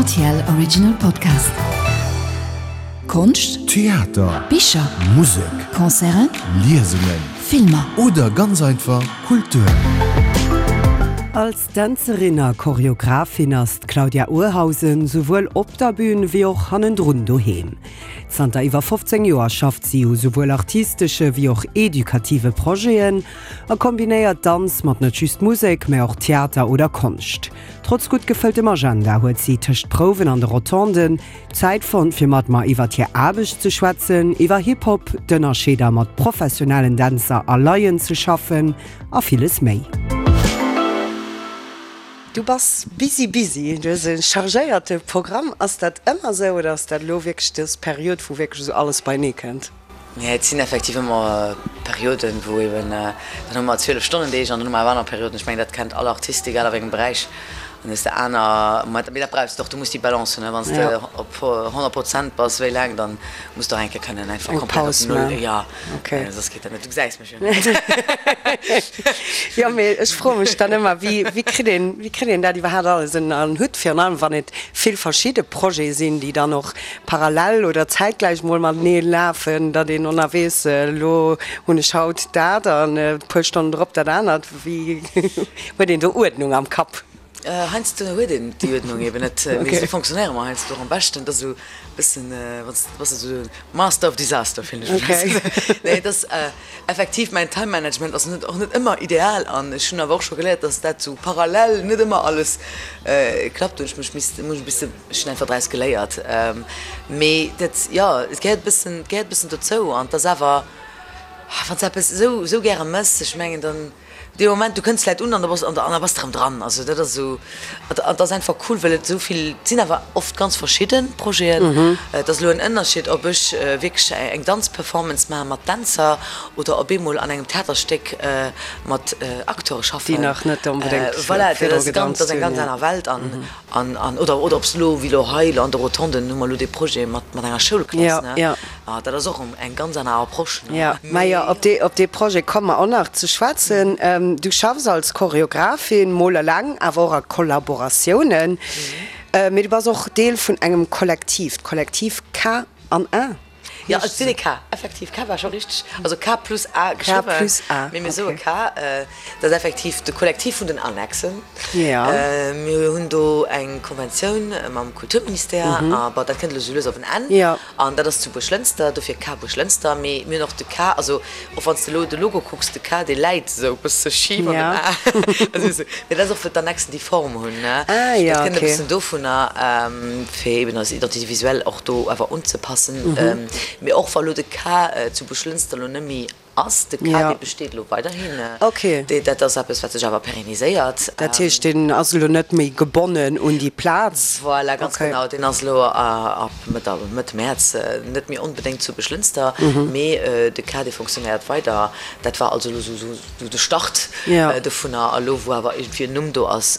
Rtl Original Podcast. Konscht, Theater, Bicher, Musek, Concerten, Liesungen, Filmer. Oder ganz einfach Kultur. Als Dänzerin a Choreographin ass d'Claudia Urhausen souwuel op der Bün wéi och hannendrun doheem. Zanter iwwer 15 Joer schafft si u souwuel artistesche wéi och edukative Projeten a kombinéiert Danz mat net just Musek, mä och Theater oder Konscht. Trotz gutt gefëlltem Agenda huet si tëscht Prouwen an de Rotonden Zäit fonnt, fir mat mer iwwert hir Aarbecht ze schwätzen, iwwer Hip-Hop, d'Ënnerscheeder mat professionellen Dänzer a Laien ze schaffen a villes méi. Du bass busy busy, du hues e chargéierte Programm. Ass dat ëmmer esou oder ass dat elo wierklech dës Period, wou wierklech esou alles beienee kënnt? Nee, et sinn effektiv ëmmer Perioden, wou eben, dann hu mer 12 Stonnen Deeg an dann hu mer awer aner Perioden. Ech mengen, dat kennt all Artist, egal a wéi engem Beräich. Dann hues de aner Momenter, mee dat brauchs de och, du muss déi Balance hunn, wann s de op 100 Prozent bass, wéi laang, dann muss de och eng Kéier kënnen einfach komplett op Null, jo, soss geet dat net, du gesäis mech jo net. Jo, mee ech froe mech dann ëmmer, wéi, wéi kritt een, wéi kritt een dat iwwerhaapt alles ënner en Hutt, virun allem wann et vill verschidde Projete sinn, déi dann och parallel oder zäitgläich mol matenee lafen, datt een onna weess, elo hunn ech haut dat an e puer Stonnen drop dat anert. Wéi huet een do Uerdnung am Kapp? Heiansdo huet een déi Uerdnung eben net, mee esou fonctionnéiere mer heiansdo och am beschten. Et ass esou e bëssen, wann s de bass esou Master of Disaster, fillen ech mech heiansdo. Nee, et ass effektiv, mäin Time Management ass net och net ëmmer ideal an ech hunn awer och scho geléiert, datt dat esou parallel net ëmmer alles klappt. Do hunn ech mech misste, muss ech e bësse Ech hunn einfach draus geléiert. Mee dat, jo, et gehéiert e bëssen, et gehéiert e bëssen dozou. An et ass awer, wann s de eppes esou, esou gäre méchs, ech mengen dann, dee Moment, du kënns vläicht un an da bass, an da bass de erëm dran. Also dat ass esou, an et ass einfach cool, well et esou vill, et sinn awer oft ganz verschidde Projeten. Et ass elo en Ënnerscheed, ob ech wierklech eng Danzperformance maache mat Dänzer oder op eemol an engem Theaterstéck mat Acteure schaffen. Déi nach net onbedéngt Voilà, dat ass ganz, dat ass eng ganz aner Welt. An An, an, oder, oder ob se elo, wéi elo hei elo an de Rotonden hu mer elo dee Projet mat, mat enger Schoulklass, ne? Ja, ja. Ah, dat ass och eng ganz aner Approche, ne? Ja, majo, op dee, op dee Projet komme mer och nach ze schwätzen. Du schaffs als Choreographin, mol eleng, awer och a Kollaboratiounen. Mee du bass och Deel vun engem Kollektiv, d'Kollektiv K an A. Jo, et sinn e K, effektiv. K war scho richteg, also K plus A geschriwwen. K plus A, Mee mir soe K. Dat ass effektiv de Kollektiv vun den Annexen. Mir hunn do eng Konventioun mam Kulturministère a bon, dat kënnt elo sou lues op en Enn. An dat ass zu Buerglënster, dofir K Buerglënster. Mee mir hunn och de K, also och wann s de elo de Logo kucks, de K, dee läit esou e bësse schif an dem A. Also esou, mee dat ass och, well d'Annexen déi Form hunn, ne. Dat kënnt e bëssen dovunner, fir eben eis Identité visuelle och do awer unzepassen. Mee och wa lo de K zu Buerglënster lo net méi ass, de K, dee besteet elo weiderhin. Dat ass eppes, wat sech awer pérenniséiert. Dat heescht, deen ass elo net méi gebonnen un déi Plaz? Voilà, ganz genau. Deen ass elo ab Mëtt Mäerz net méi onbedéngt zu Buerglënster, mee de K, dee fonctionnéiert weider. Dat war also elo esou de Start dovunner. A lo, wou awer iergendwéi en Numm do ass,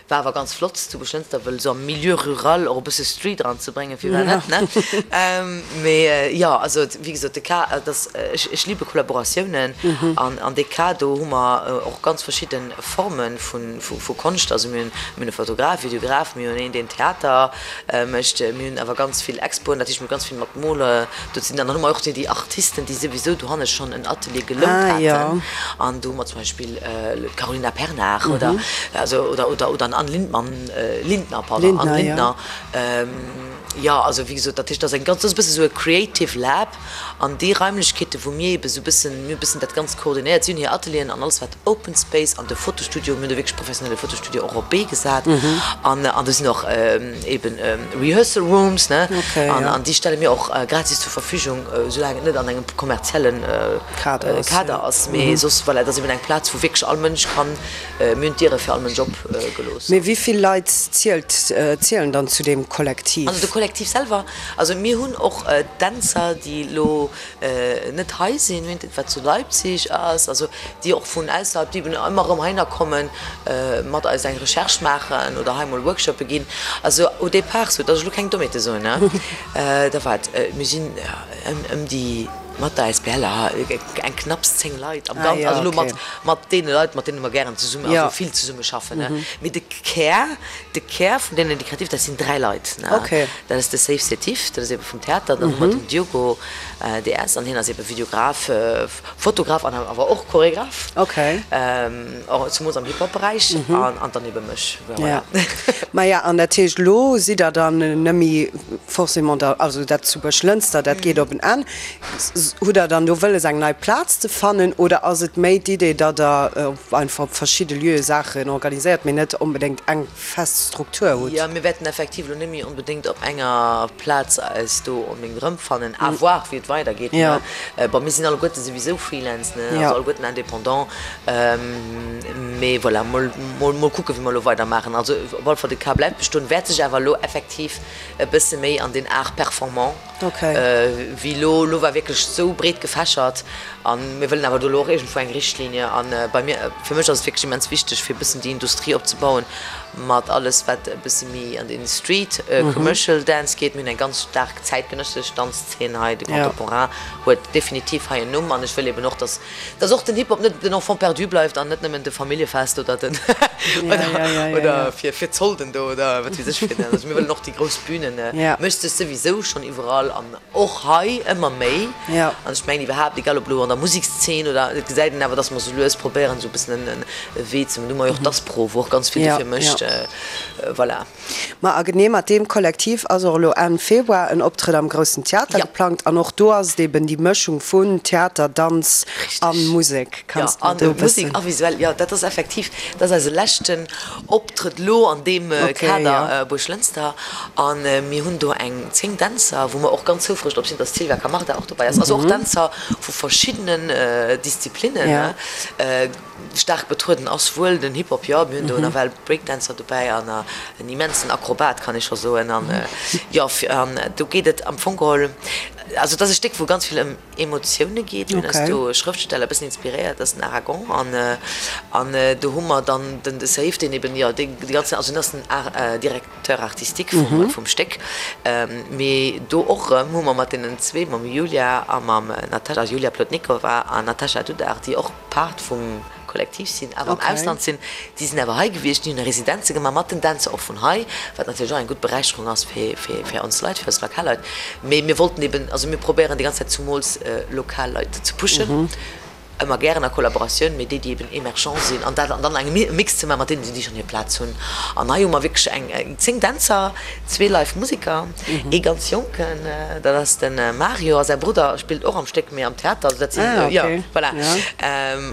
War awer ganz flott zu Buerglënster, wëll esou am Milieu rural och e bësse Street eranzebréngen, firwat net, ne? Mee jo, also wéi gesot, de Cas, et ass, ech, ech liebe Kollaboratiounen an an dee Cas do hu mer och ganz verschidde Forme vu, vu Konscht. Also mir hunn, mir hunn e Fotograf, Videograf, mir hunn een, deen Theater mécht, mir hunn awer ganz vill Expoen, dat heescht mir hu ganz vill mat Mole do ze dinn. An dann hu mer och déi Artisten, déi souwisou dohanne schonn en Atelier gelount haten an do hu mer zum Beispill d'Carolina Pernar oder also oder oder oder an Anne Lindmann, Lindner, pardon, Anne Lindner. Jo, also wéi gesot, dat heescht, dat ass eng ganz, dat ass e bësse sou e Creative Lab an déi Raimlechkeete wou mir eebe sou e bëssen, mir hu e bëssen dat Ganzt koordinéiert, si hunn hir Atelieren an alles wat Open Space an de Fotostudio, mir hunn do wierklech professionelle Fotostudio och op d'Bee gesat an an do sinn och eeben Rehearsal Rooms, ne, an an déi stelle mir och gratis zur Verfügung, soulaang et net an engem kommerziellen Kader ass, mee soss, voilà, et ass eben eng Plaz, wou wierklech all Mënsch kann, mir hunn d'Diere fir all Mënsch op gelooss. Mee wéi vill Leit zielt, zielen dann zu deem Kollektiv? Also de Kollektiv selwer, also mir hunn och Dänzer, déi elo net hei sinn, mir hunn wat zu Leipzig ass, also déi och vun ausserhalb, déi eben ëmmer erëm heihinner kommen, mat eis eng Recherche maachen oder hei emol Workshoppe ginn. Also au départ, sou datt ech elo keng Dommheete soen, ne, da wat, mir sinn ëm déi. Mat der Asbl, eng knapps 10 Leit am Ganzen, also elo mat mat deene Leit, mat deene mer gären zesummen, also vill zesumme schaffen, ne. Mee de Kär, de Kär vun deenen, déi kreativ, dat sinn 3 Leit, ne. Dat ass de Seif Setif, dat ass ebe vum Theater, dann hu mer den Diogo DS an hien ass ebe Videograf, Fotograf an awer och Choregraf, och zemools am Hip-Hop-Beräich an dann ebe mech, voilà. Maja, an dat heescht, elo sidd Der dann nëmme forcément da, also dat zu Buerglënster, dat geet op en Enn. Hutt Der dann do wëlles eng nei Plaz ze fannen oder ass et méi d'Idee, datt Der einfach op verschidde Lieue Saachen organiséiert, mee net onbedéngt eng fest Struktur hutt? Jo, mir wäerten effektiv elo net méi onbedéngt op enger Plaz eis do onbedéngt erëmfannen. À voir, wéi et weidergeet, ne. Bon, mir sinn alleguerte souwisou Freelance, ne, also alleguerten Indépendant. Mee voilà, mol, mol, mol kucken, wéi mer elo weidermaachen. Also op alle Fall, de Cas bleift bestoen, wäert sech awer elo effektiv e bësse méi an den Art performant wéi elo. Elo war wierklech esou breet gefächert a mir wëllen awer do elo och iergendwou eng Richtlinie. A bei mir, fir mech ass et wierklech immens wichteg, fir e bëssen déi Industrie opzebauen mat alles, wat e bësse méi an den Street Commercial Dance geet. Mir hunn eng ganz staark zäitgenëssesch Danzzeen hei, de Contemporain huet definitiv hei en Numm an ech wëll eben och, dass Dass och den Hip-Hop net den Enfant perdu bleift an net nëmmen de Familljefest oder den oder fir fir d'Solden do oder wat weess ech fir den. Also mir wëllen och déi grouss Bünen, mécht sech souwisou schonn iwwerall an och hei ëmmer méi. An ech mengen iwwerhaapt, egal ob elo an der Musekszeen oder, et gesäit een awer, dass mer sou lues probéieren esou e bëssen en Wee ze, do hu mer jo och d'Aspro, wou och ganz vill dofir mécht. Voilà. Ma a genee mat deem Kollektiv ass och elo Enn Februar en Optrëtt am Groussen Theater geplangt. An och do ass et eben déi Mëschung vun Theater, Danz a Musek. Kanns de mer do e bëssen. Musek a visuell, jo, dat ass effektiv, dat ass eise leschten Optrëtt elo an deem Kader Buerglënster. A mir hunn do eng 10 Dänzer, wou mer och ganz houfreg drop sinn, dass d'Sylvia Camarda och dobäi ass. Also och Dänzer vu verschiddenen Disziplinnen. Staark betrueden ass wuel den Hip-Hop, jo. Mir hunn do nawell Breakdancer dobäi an en immensen Akrobat, kann ee scho soen. An jo, an do geet et am Fong geholl, also et ass e Stéck, wou ganz vill ëm Emotioune geet. Mir hunn eis do e Schrëftsteller e bëssen inspiréiert, dat ass den Aragon. An an do hu mer dann den de Saif, deen eben, jo, dee déi ganz, also hien ass den Directeur artistique vum vum Stéck. Mee do och erëm hu mer mat deenen zwee, mam Julia a mam Natasha, also Julia Plotnikova an Natasha Dudar, déi och, Part vum Kollektiv sinn, awer am Ausland sinn. Déi sinn awer hei gewiescht, déi hunn Residenze gemaach mat den Dänzer och vun hei, wat natierlech och eng gutt Beräicherung ass fir fir ons Leit, fir eis lokal Leit. Mee mir wollten eben, also mir probéieren déi ganz Zäit zumools lokal Leit ze pushen, ëmmer gären a Kollaboratioun, mee déi, déi eben emergent sinn an dat an dann eng e Mix ze maachen mat deenen, déi schonn hir Plaz hunn. An hei hu mer wierklech eng 10 Dänzer, zwee live Museker, ee ganz Jonken, dat ass de Mario a säi Brudder spillt och am Stéck, mee am Theater, also dat sinn, jo, voilà.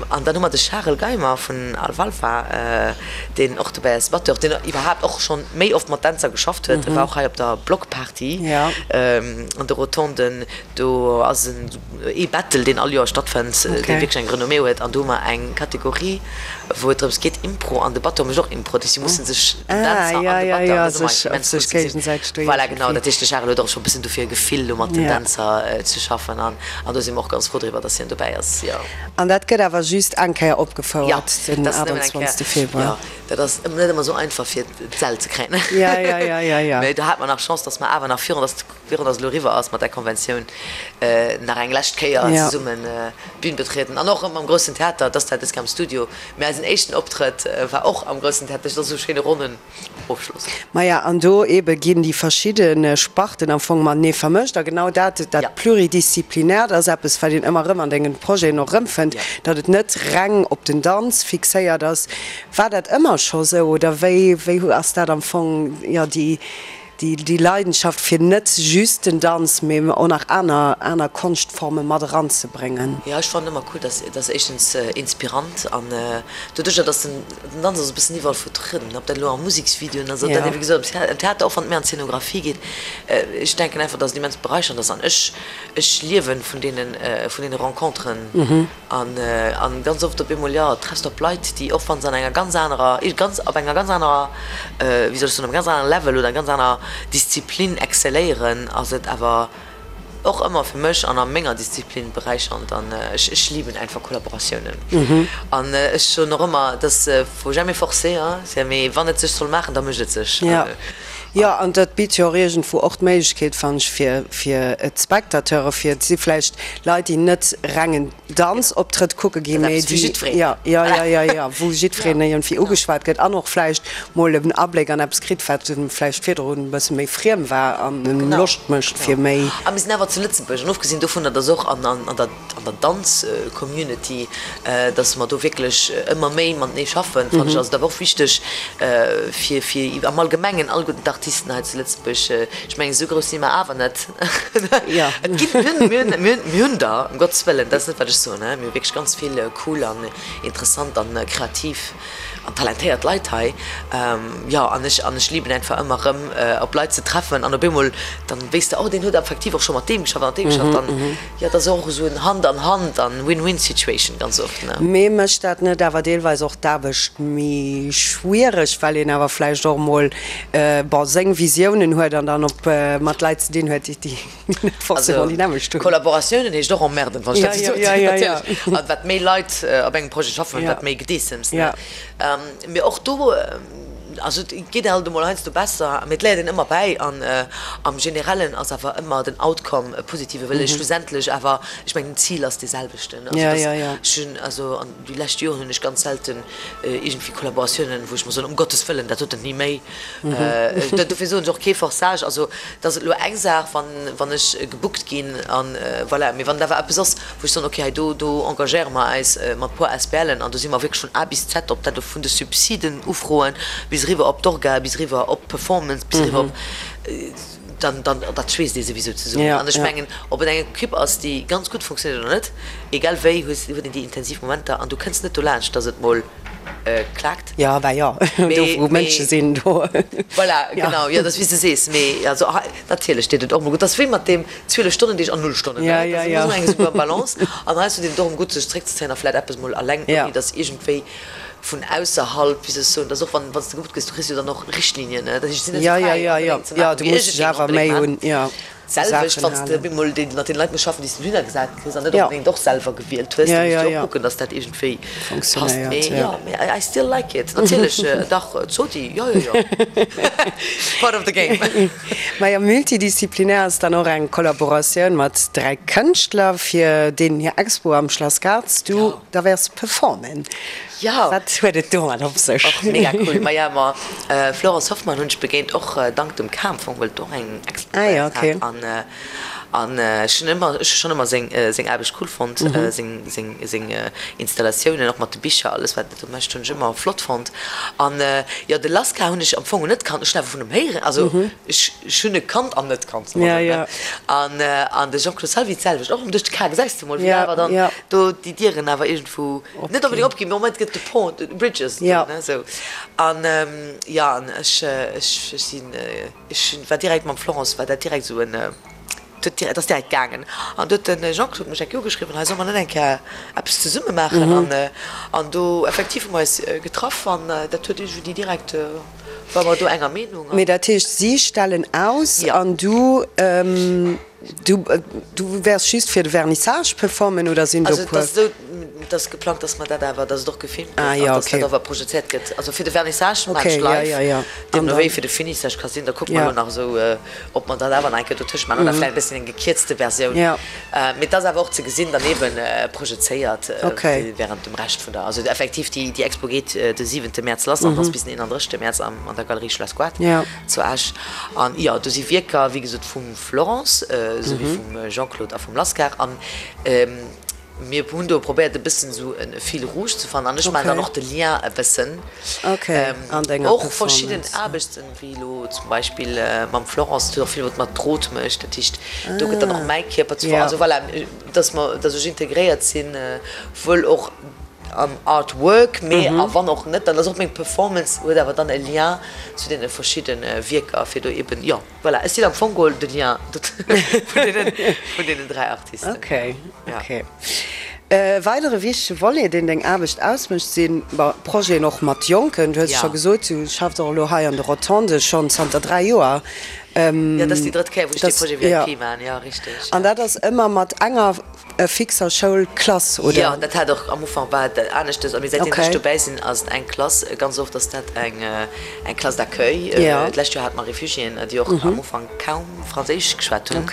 An dann hu mer de Charel Geimer vun Alfalfa, deen och dobäi ass, Batteur, deen iwwerhaapt och schonn méi oft mat Dänzer geschafft huet, e war och hei op der Blockparty an de Rotonden, do ass en. Ee Battle, deen all Joer stattfënnt, dee wierklech eng Renommée huet. An do hu mer eng Kategorie, wou et drëms geet, Impro, an de Batteur mécht och Impro. Dat heescht, si musse sech, den Dänzer an de Batteur, an dat ass ëmmer immens cool ze gesinn. Voilà, genau. Dat heescht, de Charel huet och scho e bëssen dofir e Gefill, elo mat den Dänzer ze schaffen. An do si mer och ganz frou driwwer, datt hien dobäi ass, jo. An dat gëtt awer just eng Kéier opgefouert, den 28. Februar? Jo, dat ass net ëmmer esou einfach, fir d'Säll ze kréien. Mee do hate mer nach Chance, datt mer awer nach virun, datt Virun dass et elo eriwwer ass mat där Konventioun, nach eng lescht Kéier zesummen d'Bün betrieden an och erëm am Groussen Theater. Et ass zwar dës Kéier am Studio, mä eisen éischten Optrëtt war och am Groussen Theater. Dat ass esou e schéine ronnen Ofschloss. Maja, an do eebe ginn déi verschidde Sparten am Fong matenee vermëscht. A genau dat, dat Pluridisziplinärt ass eppes, wat een ëmmer erëm an dengen Projeten och erëmfënnt, datt et net reng op den Danz fixéiert ass. War dat ëmmer scho sou oder wéi, wéi ass dat am Fong, jo, déi, Déi Leidenschaft fir net just den Danz, mee och nach aner aner Konschtforme mat eranzebréngen. Jo, ech fannen ëmmer cool, dass dass éischtens inspirant an doduercher dass den den Danz ass e bëssen iwwerall vertrueden, ob dat elo a Museksvideoen ass, ob dat ewéi gesot am Theater, och wann et méi an d'Scenographie geet. Ech denken einfach, dass et immens beräichernd ass an ech ech liewen vun deenen vun deene Renconteren. An an ganz oft op eemol, jo, treffs de op Leit, déi och wann se an enger ganz anerer, ganz op enger ganz anerer, wéi soll ech soen, op engem ganz anere Level oder ganz aner Disziplin excelléieren, ass et awer och ëmmer fir mech an a menger Disziplin beräichernd. An ech ech liben einfach Kollaboratiounen. An ech soen och ëmmer, dass faut jamais forcer, hein, mee wann et sech soll maachen, da mécht et sech. Jo. Jo, an dat bitt jo och iergendwou och d'Méiglechkeet, fannen ech, fir, fir d'Spectateure, fir, et si vläicht Leit, déi net reng en Danzoptrëtt kucke ginn, mee déi, jo, jo, jo, jo, jo, wou jiddwereen iergendwéi ugeschwat gëtt an och vläicht mol en Abléck an eppes kritt, wat em vläicht virdrun e bësse méi friem war an em Loscht mécht fir méi. A mir sinn awer zu Lëtzebuerg, an ofgesinn dovunner, dass och an der an der Danz-Community, dass mer do wierklech ëmmer méi matenee schaffen, fannen ech, ass et awer och wichteg fir, fir am Allgemengen alleguerten d'Artisten hei zu Lëtzebuerg, ech mengen, esou grouss si mer awer net, et ginn, mir hunn, mir hunn, mir hunn, mir hunn der, ëm Gottes wëllen, dat ass net wat ech soen, mir hu wierklech ganz vill cool an interessant an kreativ an talentéiert Leit hei, jo, an ech, an ech liben einfach ëmmer erëm op Leit ze treffen an op eemol dann wéisst de, oh deen huet effektiv och scho mat deem geschafft an mat deem geschafft an jo, et ass och esou en Hand an Hand an Win-win-Situation ganz oft, ne. Mee mécht dat net awer deelweis och d'Aarbecht méi schwiereg, well een awer vläicht och emol, bon, seng Visiounen huet an dann op mat Leit ze dinn huet, déi Net forcément déi nämmlecht hunn. Kollaboratiounen heescht och emmerden, wann ech dat esou soen. Natierlech. An wat méi Leit op engem Projet schaffen, wat méi Gedeessems, ne? Mee och do, also et geet alt emol heiansdo besser, mee et léiert een ëmmer bäi. An am Generellen ass awer ëmmer den Outcome e positive, well ee schlussendlech awer, ech mengen, den Zil ass dee selwechten. Also dass ech hunn, also an déi lescht Joren hunn ech ganz selten iergendwéi Kollaboratiounen, wou ech mer soen, um Gottes Wëllen, dat doten ni méi. Dofir soen ech och kee Forçage. Also et ass elo eng Saach, wann, wann ech gebookt ginn an voilà. Mee wann et awer eppes ass, wou ech soen, okay, hei do, do engagéiere mer eis mat puer ASBLen an do si mer wierklech vun A bis Z, ob dat elo vun de Subsiden ufroen bis eriwwer op d'Orga, bis eriwwer op d'Performance, bis eriwwer op, dann, dann, dat schweesst ee souwisou zesummen. An ech mengen, ob et eng Equipe ass, déi ganz gutt funktionéiert oder net, egal wéi, hues, huet een déi intensiv Momenter an du kënns net dolaanscht, datt et mol klaakt. Jo, bah jo, do wou Mënsche sinn, do. Voilà, genau, jo, dat ass wéi s de sees. Mee also hei, natierlech deet et och emol gutt. Dat ass wéi mat deem 12 Stonnen Deeg an null Stonnen, ne? Dat ass ëmmer esou eng super Balance. An heiansdo deet et och emol gutt, sech zeréckzezéien a vläicht eppes mol alleng, ouni datt iergendwéi vun ausserhalb, wéi soll ech soen, datt och wann, wann s de gebucht gëss, du kriss jo dann och Richtlinien, ne? Dat heescht, et sinn net esou fräi onbedéngt ze maachen, wéi ech et géing onbedéngt maachen. D'selwecht, wann s de op eemol mat deene Leit muss schaffen, déi s de dohinner gesat kriss an net onbedéngt och selwer gewielt hues, da muss du och kucken, dass dat iergendwéi passt. Mee jo, mee I still like it. Natierlech, dach, Zodi, jo, jo, jo, part of the game. Majo, multidisziplinär ass dann och eng Kollaboratioun mat 3 Kënschtler, fir deenen hir Expo am Schlass Gartz du da wäers performen. Jo. Wat huet et domat op sech? Och mega cool. Maja, ma Florence Hoffmann hunn ech begéint, och dank dem Cam Fong, well et och eng Expo bei eis hat. An an ech hunn ëmmer, ech hu schonn ëmmer seng seng Aarbecht cool fonnt, seng seng seng Installatiounen, och mat de Bicher, alles wat e do mécht, hunn ech ëmmer flott fonnt. An jo, de Laska hunn ech am Fong net kannt, ech hunn awer vun em héieren, also ech ech hunn e kannt an net kannt, soe mer esou, ne? An an de Jean-Claude Salvi d'selwecht, och erëm duerch de Cam, gesäis de mol, wéi awer dann do déi Dieren awer iergendwou Net onbedéngt opginn, mee au moins et gëtt de Pont, de Bridges do, ne, esou. An jo, an ech, ech, ech sinn, ech war direkt mam Florence war dat direkt esou en, et huet direkt, et ass direkt gaangen. An du huet de Jean-Claude mech eng Kéier ugeschriwwen, hei solle mer net eng Kéier eppes zesumme maachen? An, an do effektiv hu mer eis getraff an dat huet iergendwéi direkt, ware mer do enger Meenung. Mee dat heescht, si stellen aus an du. Du du wäers just fir de Vernissage performen oder sinn do puer? Also et ass esou, et ass geplangt, dass mer dat awer, dass et och gefilmt gëtt an dass dat awer projezéiert gëtt. Also fir de Vernissage maachen ech live, deemno wéi fir de Finissage ka sinn, da kucke mer elo nach esou, ob mer dat awer nach eng Kéier dotëscht maachen oder vläicht e bësschen eng gekierzte Versioun. Mee et ass awer och ze gesinn dann eeben projezéiert während dem Rescht vun der, also effektiv déi Expo geet de siwente Mäerz lass an ass bis den 31. Mäerz an der Galerie Schlass Goart zu Esch. An jo, do si Wierker, wéi gesot, vum. Florence, esou wéi vum Jean-Claude a vum Lascar. An mir hunn do probéiert e bëssen esou e Fil rouge ze fannen. An ech maachen dann och de Lien e bëssen. Och verschidden Aarbechten, wéi elo zum Beispill mam Florence, dat huet och vill mat Drot mécht. Dat heescht, do gëtt dann och mäi Kierper zu. Also voilà, dass mer, dass ech integréiert sinn, wuel och am Artwork, mee a wann och net, dann ass och meng Performance huet awer dann e Lien zu deene verschidde Wierker, fir do eben, jo. Voilà, ech sinn am Fong geholl de Lien vun deenen 3 Artisten. Ok, ok. E weidere wichtege Volet, deen deng Aarbecht ausmécht, si Projeten och mat Jonken. Du hues scho gesot, du schaffs och elo hei an de Rotonde schonn zanter 3 Joer. Jo, dat ass déi drëtt Kéier, wou ech dee Projet VIP maachen, jo, richteg. An dat ass ëmmer mat enger fixer Schoulklass, oder? Jo, dat hat och am Ufank war et aneschtes, mee säitdeem ech dobäi sinn, ass et eng Klass. Ganz oft ass dat eng eng Classe d'accueil. D'lescht Joer hate mer Refugiéen, déi och am Ufank kaum Franséisch geschwat hunn.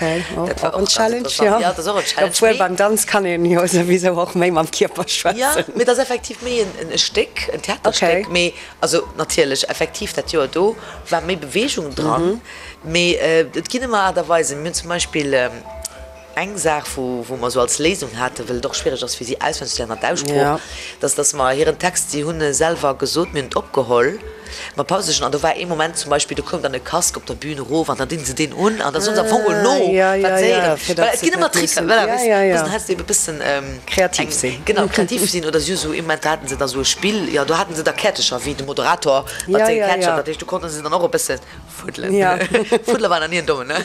Dat war och ganz interessant. Jo, dat ass och en Challenge. Obwuel beim Danz kann een jo souwisou och méi mam Kierper schwätzen. Jo, mee et ass effektiv méi en Stéck, en Theaterstéck. Mee also natierlech, effektiv dat Joer do war méi Beweegung dran. Mee et ginn ëmmer Aart a Weisen. Mir hunn zum Beispill Eng Saach, wou, wou mer esou als Léisung haten, well et och schwiereg ass fir si auswenneg ze léieren an d'Aussprooch, dass, dass mer hiren Text, si hunn e selwer gesot, mir hunn et opgeholl mat Pausechen an do war ee Moment zum Beispill, do koum dann e Casque op der Bühn erof an dann dinn se deen un an da soen se am Fong mol no, wat se héieren. Voilà, et ginn ëmmer Tricker, voilà, weess, mussen heiansdo ebe bëssen kreativ sinn. Genau, kreativ sinn oder si hu sou ee Moment, do haten se da sou e Spill, jo, do haten se da Käertecher wéi de Moderator mat senge Käertecher, dat heescht, do konnte se dann och e bëssen Fuddelen. Ja. Fuddele war nach ni en Dommen, ne?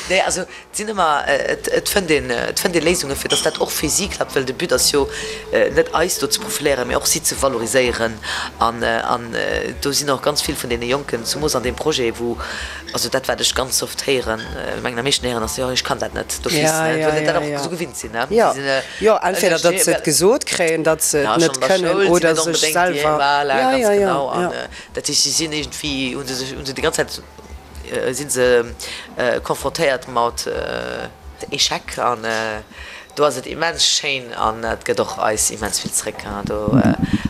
Nee, also et sinn ëmmer, et fënnt een, et fënnt ee Léisunge fir datt dat och fir si klappt, well de But ass jo net eis do ze profiléieren, mee och si ze valoriséieren. An, an do sinn och ganz vill vun deene Jonken, zemoos an deem Projet, wou, also dat wat ech ganz oft héieren, mengen am meeschten héieren ass, jo ech kann dat net d'office, Ja, ne, ja, well se dat ja, och ja. esou gewinnt sinn, ne. Jo, Si sinn jo, entweder datt se ënnerstee-, et gesot kréien, datt se ja, et schonn net an der kënnen Schoul sinn oder net sech onbedéngt déi, selwer, voilà, ja, ganz ja, ja, genau. An ja. Dat heescht, si sinn iergendwéi, hu se sech, hu se déi ganz Zäit, si se confrontéiert mat Echec an do ass et immens schéin an et gëtt och eis immens vill zréck. Do,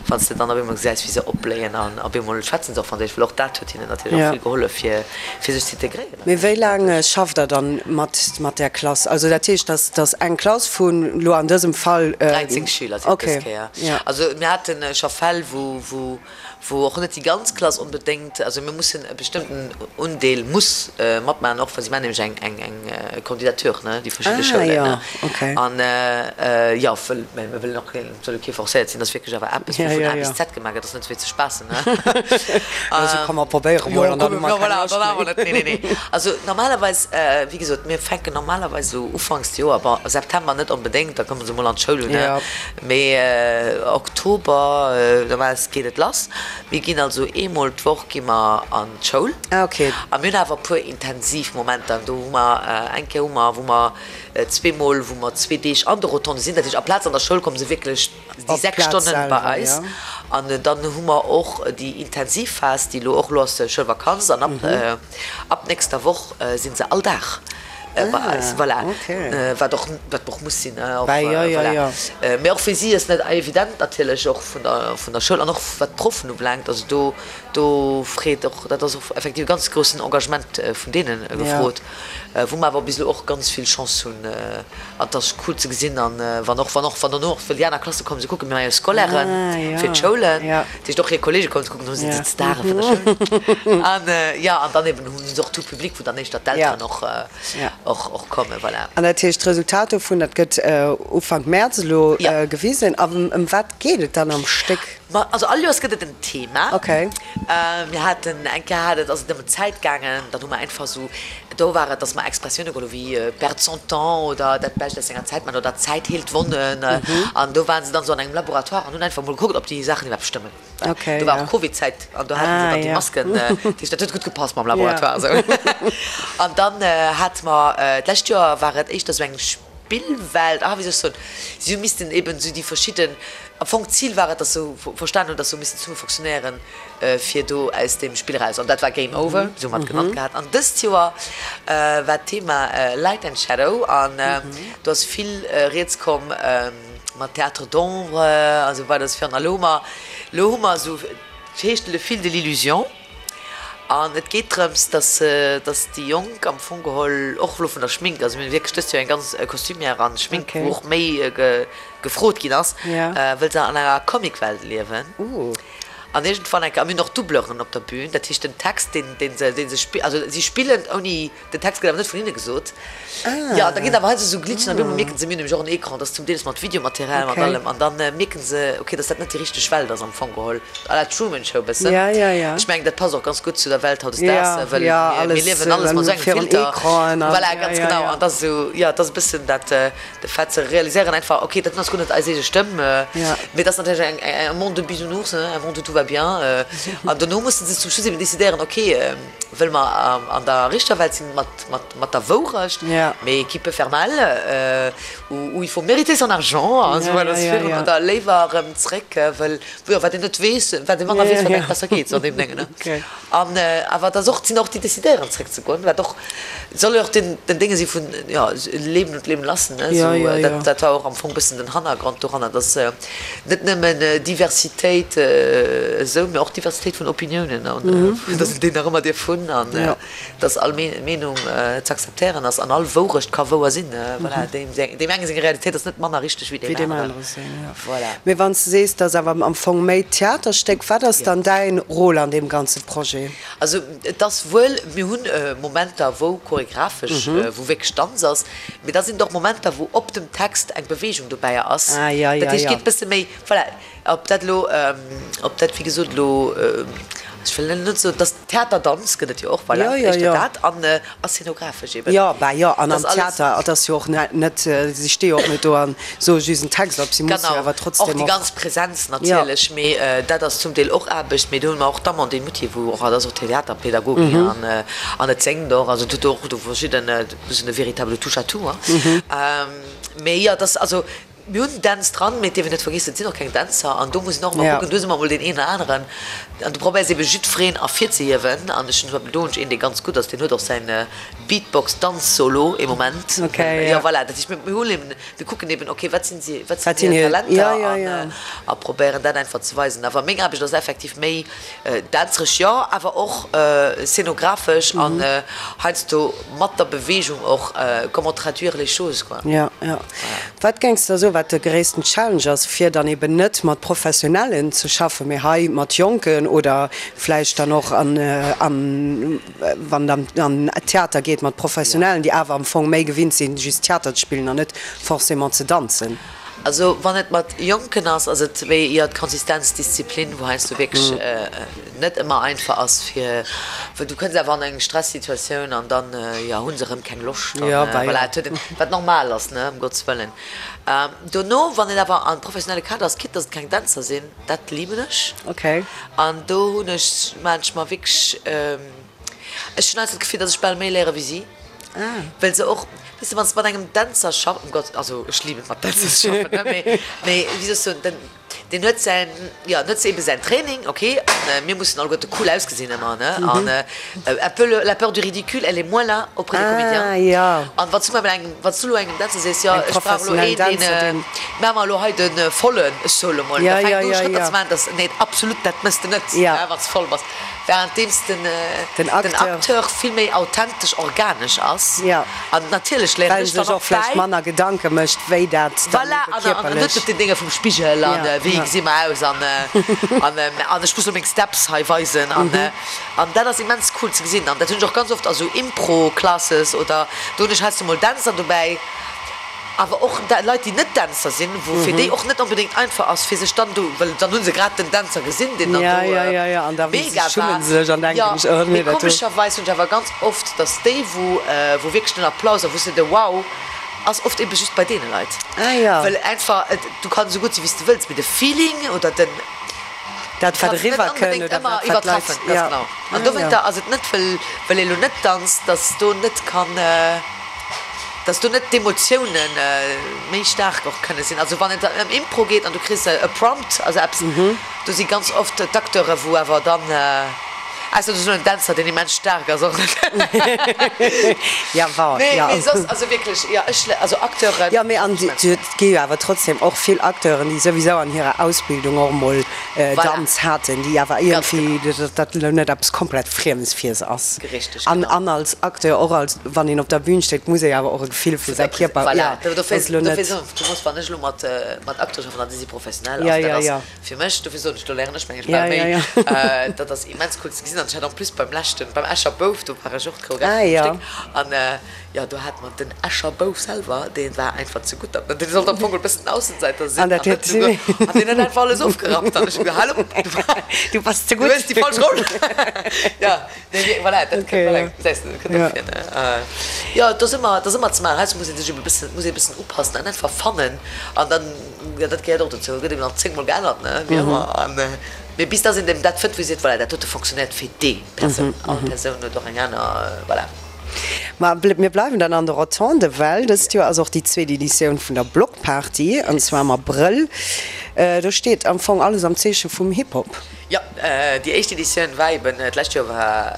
wann s de dann op eemol gesäis, wéi se opbléien an op eemol schwätzen se och Franséisch, well och dat huet hinnen natierlech och vill gehollef, fir fir sech z'integréieren. Mee wéi laang schafft Der dann mat mat där Klass? Also dat heescht, dass dass eng Klass vun elo an dësem Fall. 13 Schüler sinn et dës Kéier. Also mir hate scho Fäll, wou wou wou och net déi ganz Klass onbedéngt, also mir mussen e bestëmmten Undeel muss matmaachen, och wa si maachen nämlech eng eng eng Candidature, ne, déi verschidde Schoulen, ne. An jo, wëll, mä mir wëllen och keen, et soll jo kee forcéiert sinn, dat ass wierklech awer eppes, wou vun A bis Z gemaach gëtt, dat ass net fir ze spaassen, ne. Also komm mer probéiere mol an dann hu mer keng Loscht méi. Nee, nee, nee. Also normalerweis, wéi gesot, mir fänken normalerweis esou ufanks Joer, bon September net onbedéngt, da komme se mol an d'Schoul, ne. Mee Oktober, normalerweis geet et lass. Mir ginn also eemol d'Woch gi mer an d'Schoul. Ah ok. A mir hunn awer e puer intensiv Momenter. Do hu mer eng Kéier hu mer, wou mer zweemol, wou mer zwee Deeg an de Rotonde sinn. Dat heescht, aplaz an der Schoul komme se wierklech déi 6 Stonnen bei eis. An dann hu mer och déi intensiv Phas, déi elo och, elo ass Schoulvakanz an ab ab nächster Woch si se all Dag bei eis. Voilà. Wat och, wat och muss sinn, och, voilà. Mee och fir si ass net evident natierlech, och vun der, vun der Schoul an och wat d'Proffen ubelaangt. Also do, do freet och, dat ass och effektiv e ganz groussen Engagement vun deene gefrot, wou mer awer bis elo och ganz vill Chance hunn. An et ass cool ze gesinn an wann och, wann och, wann dono och wëll déi aner Klasse kommen, se kucken, mir maache jo Scolairen fir d'Schoulen, dat heescht och hir Kollege kommen ze kucken, do sinn se d'Stare vun der Schoul. An jo, an dann eben hu se och tout public, wou dann éischter d'Elteren och, och, och kommen, voilà. An dat heescht, d'Resultat dovun, dat gëtt Ufank Mäerz elo gewisen. A ëm wat geet et dann am Stéck? Ma also all Joers gëtt et en Thema. Okay. Mir haten eng Kéier hat et, ass et ëm d'Zäit gaangen, dann hu mer einfach esou, do war et, datt mer Expressioune geholl hu wéi perdre son temps oder dat Bescht aus senger Zäit man oder d'Zäit heelt Wonnen. An do waren se dann esou an engem Laboratoire an hunn einfach mol gekuckt, ob déi Saachen iwwerhaapt stëmmen. Okay, Do war ja. och Covid-Zäit an do haten se Ah, dann déi ja. Masken. Dat heescht, dat huet gutt gepasst mam Laboratoire esou. An dann hate mer, d'lescht Joer war et éischter esou eng Spillwelt, ah wéi soll ech soen, si hu missten eben esou déi verschidden, am Fong d'Zil war et, dass se verstan hunn, dass se hu missen zesumme fonctionnéieren, fir do aus deem Spill eraus, an dat war Game Over, esou hu mer et genannt gehat. An dëst Joer war d'Thema Light and Shadow an do ass vill rieds komm mat Théâtre d'ombre a sou weider, esou virun. A lo hu mer, lo hu mer esou, et heescht Le fil de l'illusion. An et geet drëms, dass dass déi Jonk am Fong geholl, och elo vun der Schmink, also mir hunn wierklech dëst Joer eng ganz Costumière an Schmink, wou och méi gefrot ginn ass, wëll se an enger Comicwelt liewen. An iergendwann eng Kéier, a mir hunn och Doubleuren op der Bühn, dat heescht den Text, deen deen se dee se spi-, also si spillen ouni, Den Text gëtt awer net vun hinne gesot. Jo, da ginn awer heiansdo esou Glitchen an op eemol mierken se, mir hunn nämlech och en Ecran, dat ass zum Deels mat Videomaterial, mat allem, an da mierken se, okay, dass dat net déi richteg Welt ass am Fong geholl, à la Truman Show bëssen. Ech mengen, dat passt och ganz gutt zu der Welt hautdesdaags, well mir liewen alles mat esou engem Filter. Voilà, ganz genau. An dat ass esou, jo, dat ass e bëssen dat, de Fait ze realiséieren einfach, okay, dat ass guer net eis eege Stëmm, mee dat ass natierlech eng, un monde de bisounours, un monde où tout va. bien. An dono musse se zum Schluss eben decidéieren, ok, wëlle mer an der richter Welt sinn mat, mat, mat der Wourecht, mais qui peut faire mal, ou il faut mériter son argent, an esou weider, esou virun, oder léiwer erëm zréck, wëll, jo, wat een net weess, wat ee manner weess, wat engem besser geet, sou an deem Déngen, ne. An awer et ass och, et sinn och déi decidéieren zréckzegoen, wat och, et soll jo och den, den Dénge si vun, jo, leben und leben lassen, ne, esou, dat, dat war och am Fong bëssen den Hannergrond doranner, dass net nëmmen Diversitéit esou, mä och Diversitéit vun Opiniounen an dass een déi nach ëmmer dierf hunn an dass all Meenung ze akzeptéieren ass an all Wourecht ka wouer sinn. Voilà, deem enge seng Realitéit ass net manner richteg wéi deem aneren. Voilà. Mee wann s de sees, et ass awer am Fong méi Theaterstéck, wat ass dann däin Rôle an deem ganze Projet? Also et ass wuel, mir hunn Momenter wou choregraphesch, wou wierklech Danz ass, Mee da sinn et och Momenter, wou op dem Text eng Beweegung dobäi ass. Ah, ja, ja, Dat heescht, ja. geet e bësse méi, voilà, ob dat elo, ob dat wéi gesot elo, ech wëll net soen, dass Theaterdanz gëtt et jo och, voilà, Ja, ja, éischter ja. dat an a szenographesch eben. Jo, bah jo, an Dat am ass alles. Theater, et ass jo och net, net, si sti jo och net do an soe just en Text op, si musse jo Genau, awer och trotzdem déi och. ganz Präsenz Ja. natierlech, mee dat ass zum Deel och Aarbecht. Mee do hunn mer och d'Amandine Muthier, wou och, dat ass och Theaterpädagogin an an et séngt och, also et huet och do verschidden, Bëssen e véritable Touche-à-tout, hein. Mee jo, dass, also mir hunn Dänz dran, mee et dierf een net vergiessen, et sinn och keng Dänzer an do muss een och ëmmer kucken, do si mer emol deen een oder aneren an du probéiers ebe jiddwereen ervirzehiewen an ech hunn zum Beispill do hunn ech een, dee ganz gutt ass, deen huet och säin Beatbox-Danz-Solo ee Moment. Jo, voilà, dat heescht, mir hunn eben, mir kucken eben, okay, wat sinn si, wat sinn hir Talenter an a probéieren dat einfach ze weisen. Awer meng Aarbecht ass effektiv méi Dänzeresch jo, awer och szenographesch an heiansdo mat der Beweegung och, comment traduire les choses quoi. Jo, jo. Wat géings de da soen, wat de gréissten Challenge ass, fir dann eben net mat Professionellen ze schaffen, mee hei mat Jonken oder vläicht dann och an, an wann et an Theater geet, mat Professionellen, déi awer am Fong méi gewinnt sinn, just Theater ze spillen an net forcément ze danzen? Also wann et mat Jonken ass, ass et méi jo d'Konsistenz, d'Disziplin, wou heiansdo wierklech net ëmmer einfach ass fir, well du kënns awer an eng Stressituatioun an dann jo hu se erëm keng Loscht an voilà, et huet een, wat normal ass, ne, ëm Gottes wëllen. Dono wann et awer am professionelle Kader ass, quitte dass et keng Dänzer sinn, dat liben ech an do hunn ech, maachen ech mer wierklech, Ech hunn heiansdo d'Gefill, dass ech bal méi léiere wéi si, well se och, weess de, wann s de mat engem Dänzer schaffs, um Gott, also ech liben et mat Dänzer ze schaffen, ne, mee, mee wéi soll ech soen, den, deen huet säin, jo, en huet ebe säin Training, ok, an mir mussen alleguerte cool ausgesinn ëmmer, ne, an un peu le, la peur du ridicule, elle est moins là auprès des comédiens. Ah, jo. An wann s du mol engem, wann s du elo engem Dänzer sees, jo, Eng ech brauch elo professionellen een, deen, Dänzer, deen. maache mer elo hei de vollen Solo mol, Ja, da ja, fänkt u ja, Schrëtter ja. ze maachen, dass, nee, absolut, dat méchs de net, Ja. ne, wann s de voll bass. Währenddeems den, Den den Acteur. Acteur vill méi authentesch, organesch ass. Ja. An natierlech léieren Well ech en dann sech och och vläicht bäi. manner Gedanke mécht, wéi dat dann Voilà, ebe an, an net kierperlech. op den Dénge vum Spigel an Ja, wéi ja. gesi mer aus an, an, an ech muss lo meng Steps hei weisen an, an dat ass immens cool ze gesinn. An dat hunn ech och ganz oft a sou Impro-Classes oder do hunn ech heiansdo mol Dänzer dobäi. Awer och Leit, déi net Dänzer sinn, wou fir déi och net onbedéngt einfach ass, fir sech dann do, well dann hu se grad den Dänzer gesinn, deen dann do mega war. Jo, mee komescherweis hunn ech awer ganz oft, datt déi, wou wou wierklech den Applaus a wou se de Wow ass, oft ebe just bei deene Leit. Well einfach, du kanns esou gutt sinn, wéi s de wëlls, mee de Feeling oder den, Dat wat kanns net eriwwer kënnt onbedéngt oder ëmmer dat wat d'Leit, iwwertreffen. Ganz jo. genau. An dowéinter ass et net, well well ee lo net danzt, datt do net kann. Dass do net d'Emotioune méi staark och kënne sinn. Also wann et ëm Impro geet an du kriss e Prompt, also eppes, do si ganz oft d'Acteure wou awer dann, ausser du hues elo en Dänzer deen immens staark ass och net. Ja bon, Nee, ja. mee soss, also wierklech, jo ech, also Acteuren. Jo, mee an et gi jo awer trotzdem och vill Acteuren, déi souwisou an hirer Ausbildung och emol Danz haten, déi awer iergendwéi, dat elo net eppes komplett Friemes fir se ass. Richtig, An genau. an als Acteur, och als, wann een op der Bühn steet, muss ee awer och e Gefill fir säi Kierper, Voilà, jo, dofir, ass elo net. dofir soen ech, du muss, wann ech elo mat, mat Acteure schaffen, an déi si professionell, Ja, also dat ja, ass ja. fir mech, dofir soen ech, do léieren ech meng ech Ja, bal méi, ja, ja. dat ass immens cool ze gesinn. An ech hat en plus beim leschten, beim Escher Bouf, do war ech och d'Choreographin Ah, vum ja. Stéck, an jo, do hate mer den Escher Bouf selwer, dee war einfach ze gutt, an dee sollt am Fong e bëssen den Aussenseiter sinn, An dat an huet net esou, an deen huet einfach alles ofgerappt, an ech hu gesot, Hallo, du, Du bass ze du gutt. hues déi falsch Roll. Ja. Nee, wierk, voilà, dat Okay, voilà, ja. gesäis de, dat kënnt Ja. och vir, ne? Jo, et ass ëmmer, et ass ëmmer ze maachen. Heiansdo muss ee sech ebe bëssen, muss ee bëssen upassen an einfach fannen. An dann, jo, dat gehéiert och dozou, gëtt eben nach zéngmol geännert, ne, wéi ëmmer. An. Mee bis dass een dem dat fënnt, wou ee seet, voilà, dat dote fonctionnéiert fir déi Persoun. All Persoun huet och eng aner, voilà. Ma mir bleiwen dann an de Rotonde, well dëst Joer ass och déi zweet Editioun vun der Block Party, an zwar am Abrëll. Do steet am Fong alles am Zeeche vum Hip-Hop. Jo, déi éischt Editioun war eben d'lescht Joer, war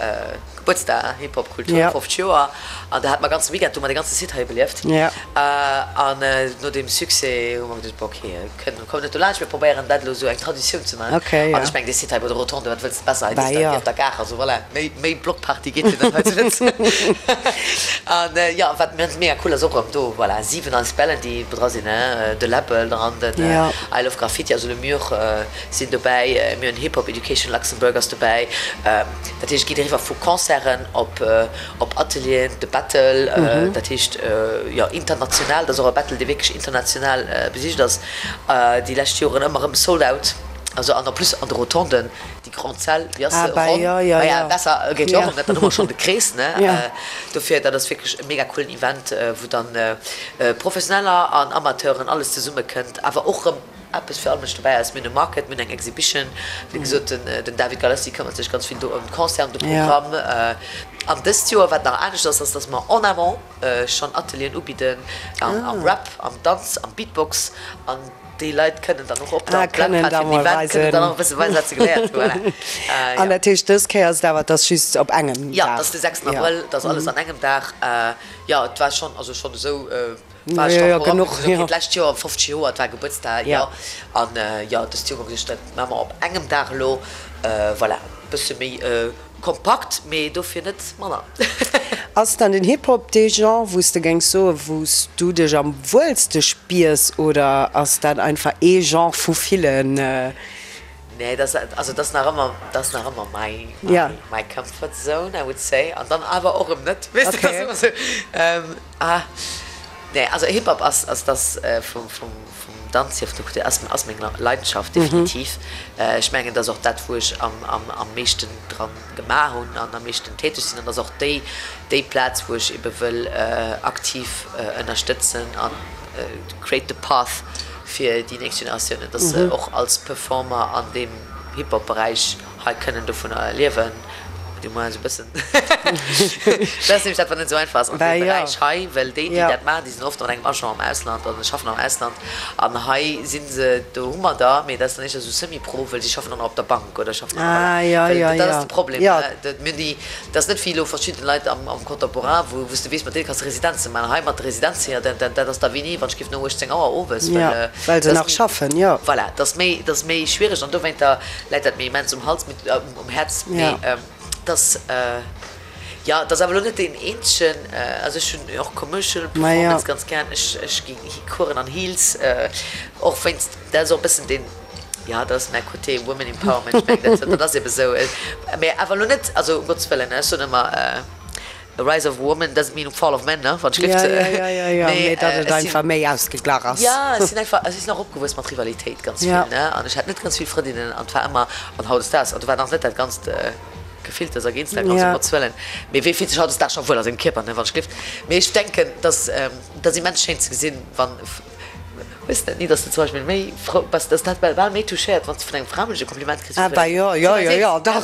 Gebuertsdag Hip-Hop Kultur, 50 Joer, an do hate mer ganze Weekend, do hu mer de ganze Site hei belieft. An no deem Succès hu mer geduecht, bon ok, kënnen, kommen net dolaanscht, mir probéieren dat elo esou eng Traditioun ze maachen. An ech mengen, dee Site hei bei de Rotonde, wat wëlls de besser, hei nieft der Gare, also voilà, méi, méi Blockparty geet jo net hei zu Lëtzebuerg. An jo, wat mega cool ass och erëm do, voilà, 7 Asblen, déi dra sinn, de Läbbel dran, den I Love Graffiti, also Le Mur, sinn dobäi, mir hunn Hip Hop Education Luxembourg ass dobäi, dat heescht et geet eriwwer vu Concerten op op Atelieren, de Battle, dat heescht jo international, dat ass och e Battle dee wierklech international besicht ass, déi lescht Joren ëmmer erëm sold out, also an en plus an de Rotonden, déi grande Salle, wéi ass se, ronn, maja besser geet jo och net, dann hu mer schonn de Krees, ne, dofir dat ass wierklech e mega coolen Event, wou dann Professioneller an Amateuren alles zesumme kënnt, awer och erëm. Eppes fir all Mënsch dobäi ass. Mir hunn e Market, mir hunn eng Exhibition. Wéi gesot, den David Galassi këmmert sech ganz vill do ëm d'Concert, ëm de Programm. An dëst Joer, wat nach anescht ass, ass, dass mer en amont schonn Atelieren ubidden am Rap, am Danz, am Beatbox. An déi Leit kënnen dann och op der Plattform vum Event kënnen dann och e bësse weisen, wat se geléiert hunn. Voilà. An dat heescht, dës Kéier ass et awer, et ass just op engem Dag? Jo, et ass de 6 Abrëll, et ass alles an engem Dag. Jo, et war schonn, also schonn esou. War ech dach genuch, jo. D'lescht Joer 50 Joer, et war Gebuertsdag, jo. An jo, dëst Joer hu mer geduecht, dat maache mer op engem Dag elo. Voilà, e bësse méi kompakt, mee dofir net manner. Ass dann den Hip-Hop dee Genre, wou s de géings soen, wou s du dech am wuelste spiers, oder ass dat einfach ee Genre vu villen? Nee, dat ass, also dat ass nach ëmmer, dat ass nach ëmmer my, my, my comfort zone, I would say. An dann awer och erëm net, weess de, dat ass ëmmer esou. Ah, nee, also Hip Hop ass, ass dass vum, vum, vum Danz hier, vun der Kultur, ass, ass meng Leidenschaft, definitiv. Ech mengen, dat ass och dat, wou ech am, am, am meeschten dran gemaach hunn an am meeschten täteg sinn. An dat ass och déi, déi Plaz, wou ech ebe wëll aktiv ënnerstëtzen an create the path fir déi nächst Generatiounen, dass se och als Performer an deem Hip Hop Beräich hei kënnen dovunner liewen, du moins esou e bëssen. Dat ass nämlech dat, wat net esou einfach ass an deem Beräich hei, well déi, déi dat maachen, déi sinn oft an engem Agent am Ausland an schaffen am Ausland. An hei si se, do hu mer der, mee dat ass dann éischter esou semi-pro, well si schaffen dann och op der Bank oder schaffen an der, voilà. Well dat ass de Problem. Mir hunn déi, dat ass net wéi elo verschidde Leit am Contemporain, wou s de weess, mat deene kanns de Residenze maachen. Hei mat de Residenze, jo, dat dat ass da wéini, wann ech géif no 18 Auer owes, well. Well se nach schaffen, jo. Voilà, dat ass méi, dat ass méi schwiereg an dowéinter läit dat mir immens um Hals, mee um Häerz, mee dass, jo, et ass awer elo net deen eenzegen, also ech hunn och Commercial Performance ganz gär, ech ech gi Coursen an Heels, och wéinst, dat ass och e bëssen deen, jo, dat ass mäi Côté Women Empowerment, ech mengen dat, dat ass ebe sou, mee awer elo net, also um Gottes Wëllen, ech soen ëmmer, The rise of woman doesn't mean fall of men, ne, wann ech gelift. Ja, ja, ja, ja, mee datt et einfach méi ausgeglach ass. Ja, ech sinn einfach, ech sinn och opgewuess mat Rivalitéit ganz vill, ne, an ech hat net ganz vill Frëndinnen an et war ëmmer, an hautdesdaags, an do war nach net dat ganzt Gefilters a Geinstagrams, um Gottes Wëllen, mee wee fillt sech hautdesdaags scho wuel a sengem Kierper, ne, wann ech gelift. Mee ech denken, datt, dat ass immens schéin ze gesinn, wann. Hues de dat ni, dass de zum Beispill méi frou bass, dass dat bal méi touchéiert, wann s de vun engem Framënsch e Kompliment kriss wéi Ah, bah jo, jo, jo, jo, dach,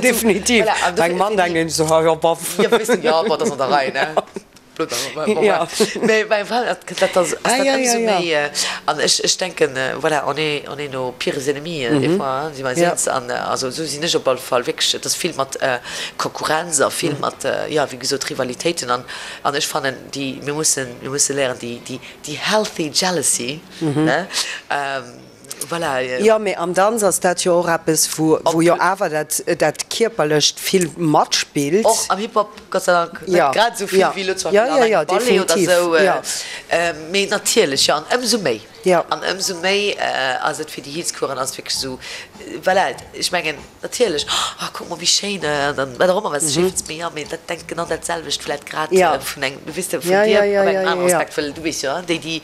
definitiv. Bei engem Mann denken ech esou, ha jo, boff. Jo, weess de, jo, bon, dat ass an der Rei, ne? Blutt an, bon, bref. Mee bei engem Fra, dat dat ass dat ëmsou méi. An ech, ech denken, voilà, on est, on est nos pires ennemis des fois, hein, si mer eis eens. An also esou sinn ech op alle Fall wierklech. Et ass vill mat Konkurrenz a vill mat, jo, wéi gesot, Rivalitéiten. An, an ech fannen, déi, mir mussen, mir musse léieren, déi, déi, Déi healthy jealousy, ne? Voilà. Jo, mee am Danz ass dat jo och eppes, wou, wou jo awer dat, dat Kierperlecht vill matspillt. Och am Hip-Hop, Gott sei Dank, net grad esou vill wéi elo zum Beispill an engem Ballet oder esou. Mee natierlech, jo, an ëmsou méi, an ëmsou méi ass et fir déi Heels-Coursen ass et wierklech esou, voilà, ech mengen, Natierlech, oh kuck mol wéi schéin, an dann wat och ëmmer wat s de schéi fënns, mee jo, mee dat denkt genau dat selwecht vläit grad vun engem, weess de, vun dir op engem aneren Aspekt, well du weess jo, déi déi.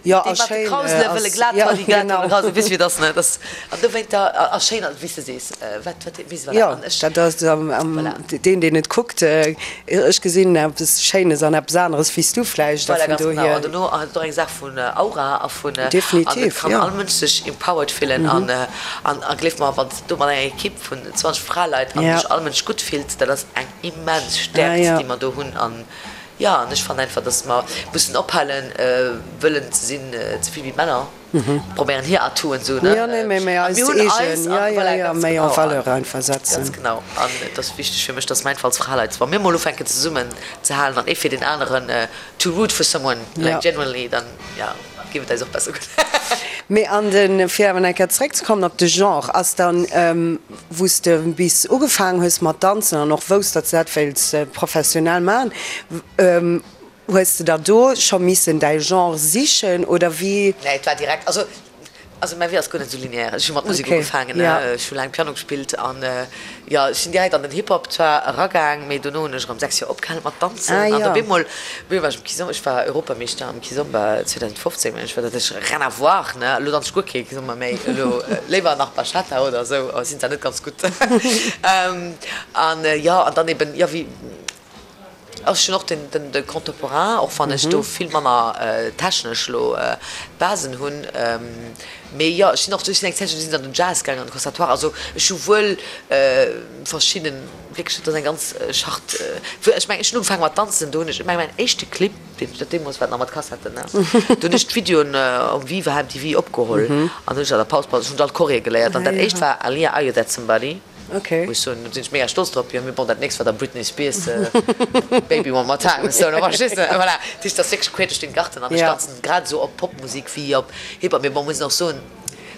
Jo, Dee a mat de schéin Krausele ass, wëlle glat jo, ha, déi glat wëlle genau. Krausele, weess wéi et ass, ne? Dass, an dowéinter, a schéin ass, wéi s de sees, wat, wat, weess, voilà, Jo, an ech, dat ass am, am, voilà. deen, deen et kuckt, ech gesinn eppes Schéines an eppes aneres wéi s du vläicht, a Voilà, vun ganz genau. dohier. An dono ass et och eng Saach vun Aura a vun, an et Definitiv, kann jo. all Mënsch sech empowered fillen an, an, a gleef mer, wann s de do mat enger Ekipp vun 20 Fraleit an Ja. sech all Mënsch gutt fillt, dat ass eng immens Ah, Stäerkt, jo. déi mer do hunn an, Jo, an ech fannen einfach, dass mer mussen ophalen wëllen ze sinn ze vill wéi d'Männer, probéieren hir Atouen esou, ne? Jo, nee, mee An eis mir hunn eis eegen, an jo, jo, voilà, jo, ganz méi en genau, an valeur einfach setzen. ganz genau. An et ass wichteg fir mech, dass mer einfach als Fraleit, wa mir mol ufänken zesummen ze halen an ee fir deen aneren to root for someone, like genuinely, dann, jo. Géif et eis och besser goen. Mee an de, fir awer nach eng Kéier zeréckzekommen op de Genre, ass dann, wou s de bis ugefaangen hues mat danzen an och wousst, datt s de dat wéilts professionell maachen, hues de da do scho missen däi Genre sichen oder wéi? Nee, et war direkt, also, also mäi Wee ass guer net esou lineaire. Ech hu mat Musek ugefaangen, ech hu laang Piano gespillt an Jo, ech sinn direkt an den Hip-Hop zwar eragaang, mee dono hunn ech erëm 6 Joer opgehalen mat danzen. Ah, An jo. op eemol, op eemol war ech um Kizomba, ech war Europameeschter am Kizomba 2015, mengen ech war dat, ech rien à voir, ne, elo danz ech guer kee Kizomba méi, elo léiwer nach Bachata oder esou, oh, sinn zwar net ganz gutt. An jo, an dann eben, jo, wéi. Ech hunn och den de Contemporain, och wann ech do vill manner technesch elo d'Basen hunn. Mee jo, ech sinn och, ech sinn eng Zäitchen, sinn an den Jazz gaangen, an de Conservatoire. Also ech hu wuel verschidden, wierklech, dat ass eng ganz Schart. Ech mengen, ech hunn ugefaange mat danzen, do hunn ech, ech mengen mäin éischte Clip, deen ech, dat deemools war et nach mat Kassetten, ne, do hunn ech d'Videoen um Viva MTV opgeholl an hunn ech an der Paus, ech hunn all d'Choree geléiert an dat éischt war Aaliyah, Are You That Somebody? Okay. Muss soen, do sinn ech mega stolz drop. Jo, mee bon, dat nächst war da Britney Spears, Baby One More Time. Sou, da verstees de, voilà. Dat heescht, dat ass wierklech quer duerch den Garten an ech danzen grad esou op Popmusek wéi op Hip-Hop. Mee bon, muss een och soen,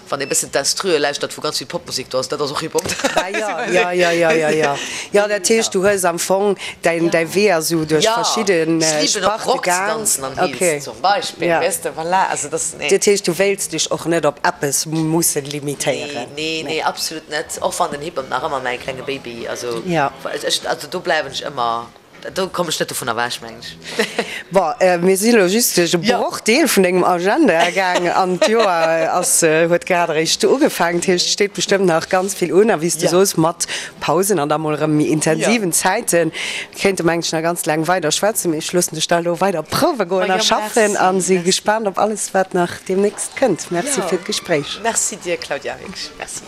wann ee bëssen d'Instrue lauschtert, wou ganz vill Popmusek do ass, dat ass och Hip-Hop. Ah jo, jo, jo, jo, jo, jo. Jo, dat heescht, du hues am Fong däin, däi Wee ass esou duerch verschidde Jo, ech liben och Sparte Rock ze gaang. danzen an Heels Okay. zum Beispill, Ja. weess de, voilà. Also dat, nee. Dat heescht, du wéilts dech och net op eppes musse limitéieren? Nee, nee, nee, absolut net. Och wann den Hip-Hop nach ëmmer mäi klenge Baby, also ech, also do bleiwen ech ëmmer, do kommen ech net dovun ewech, mengen ech. Bon, mir si lo just duerch e Brochdeel vun dengem Agenda gaang an d'Joer ass, huet grad eréischt ugefaangen. Dat heescht, et steet bestëmmt nach ganz vill un a wéi s de soos, mat Pausen an da mol erëm méi intensiven Zäiten. Mir kéinte mengen ech nach ganz laang weider schwätzen, mee ech loossen dech da elo weider prouwe goen a schaffen a si gespaant op alles wat nach deemnächst kënnt. Merci fir d'Gespréich. Merci dir Claudia, wierklech Merci.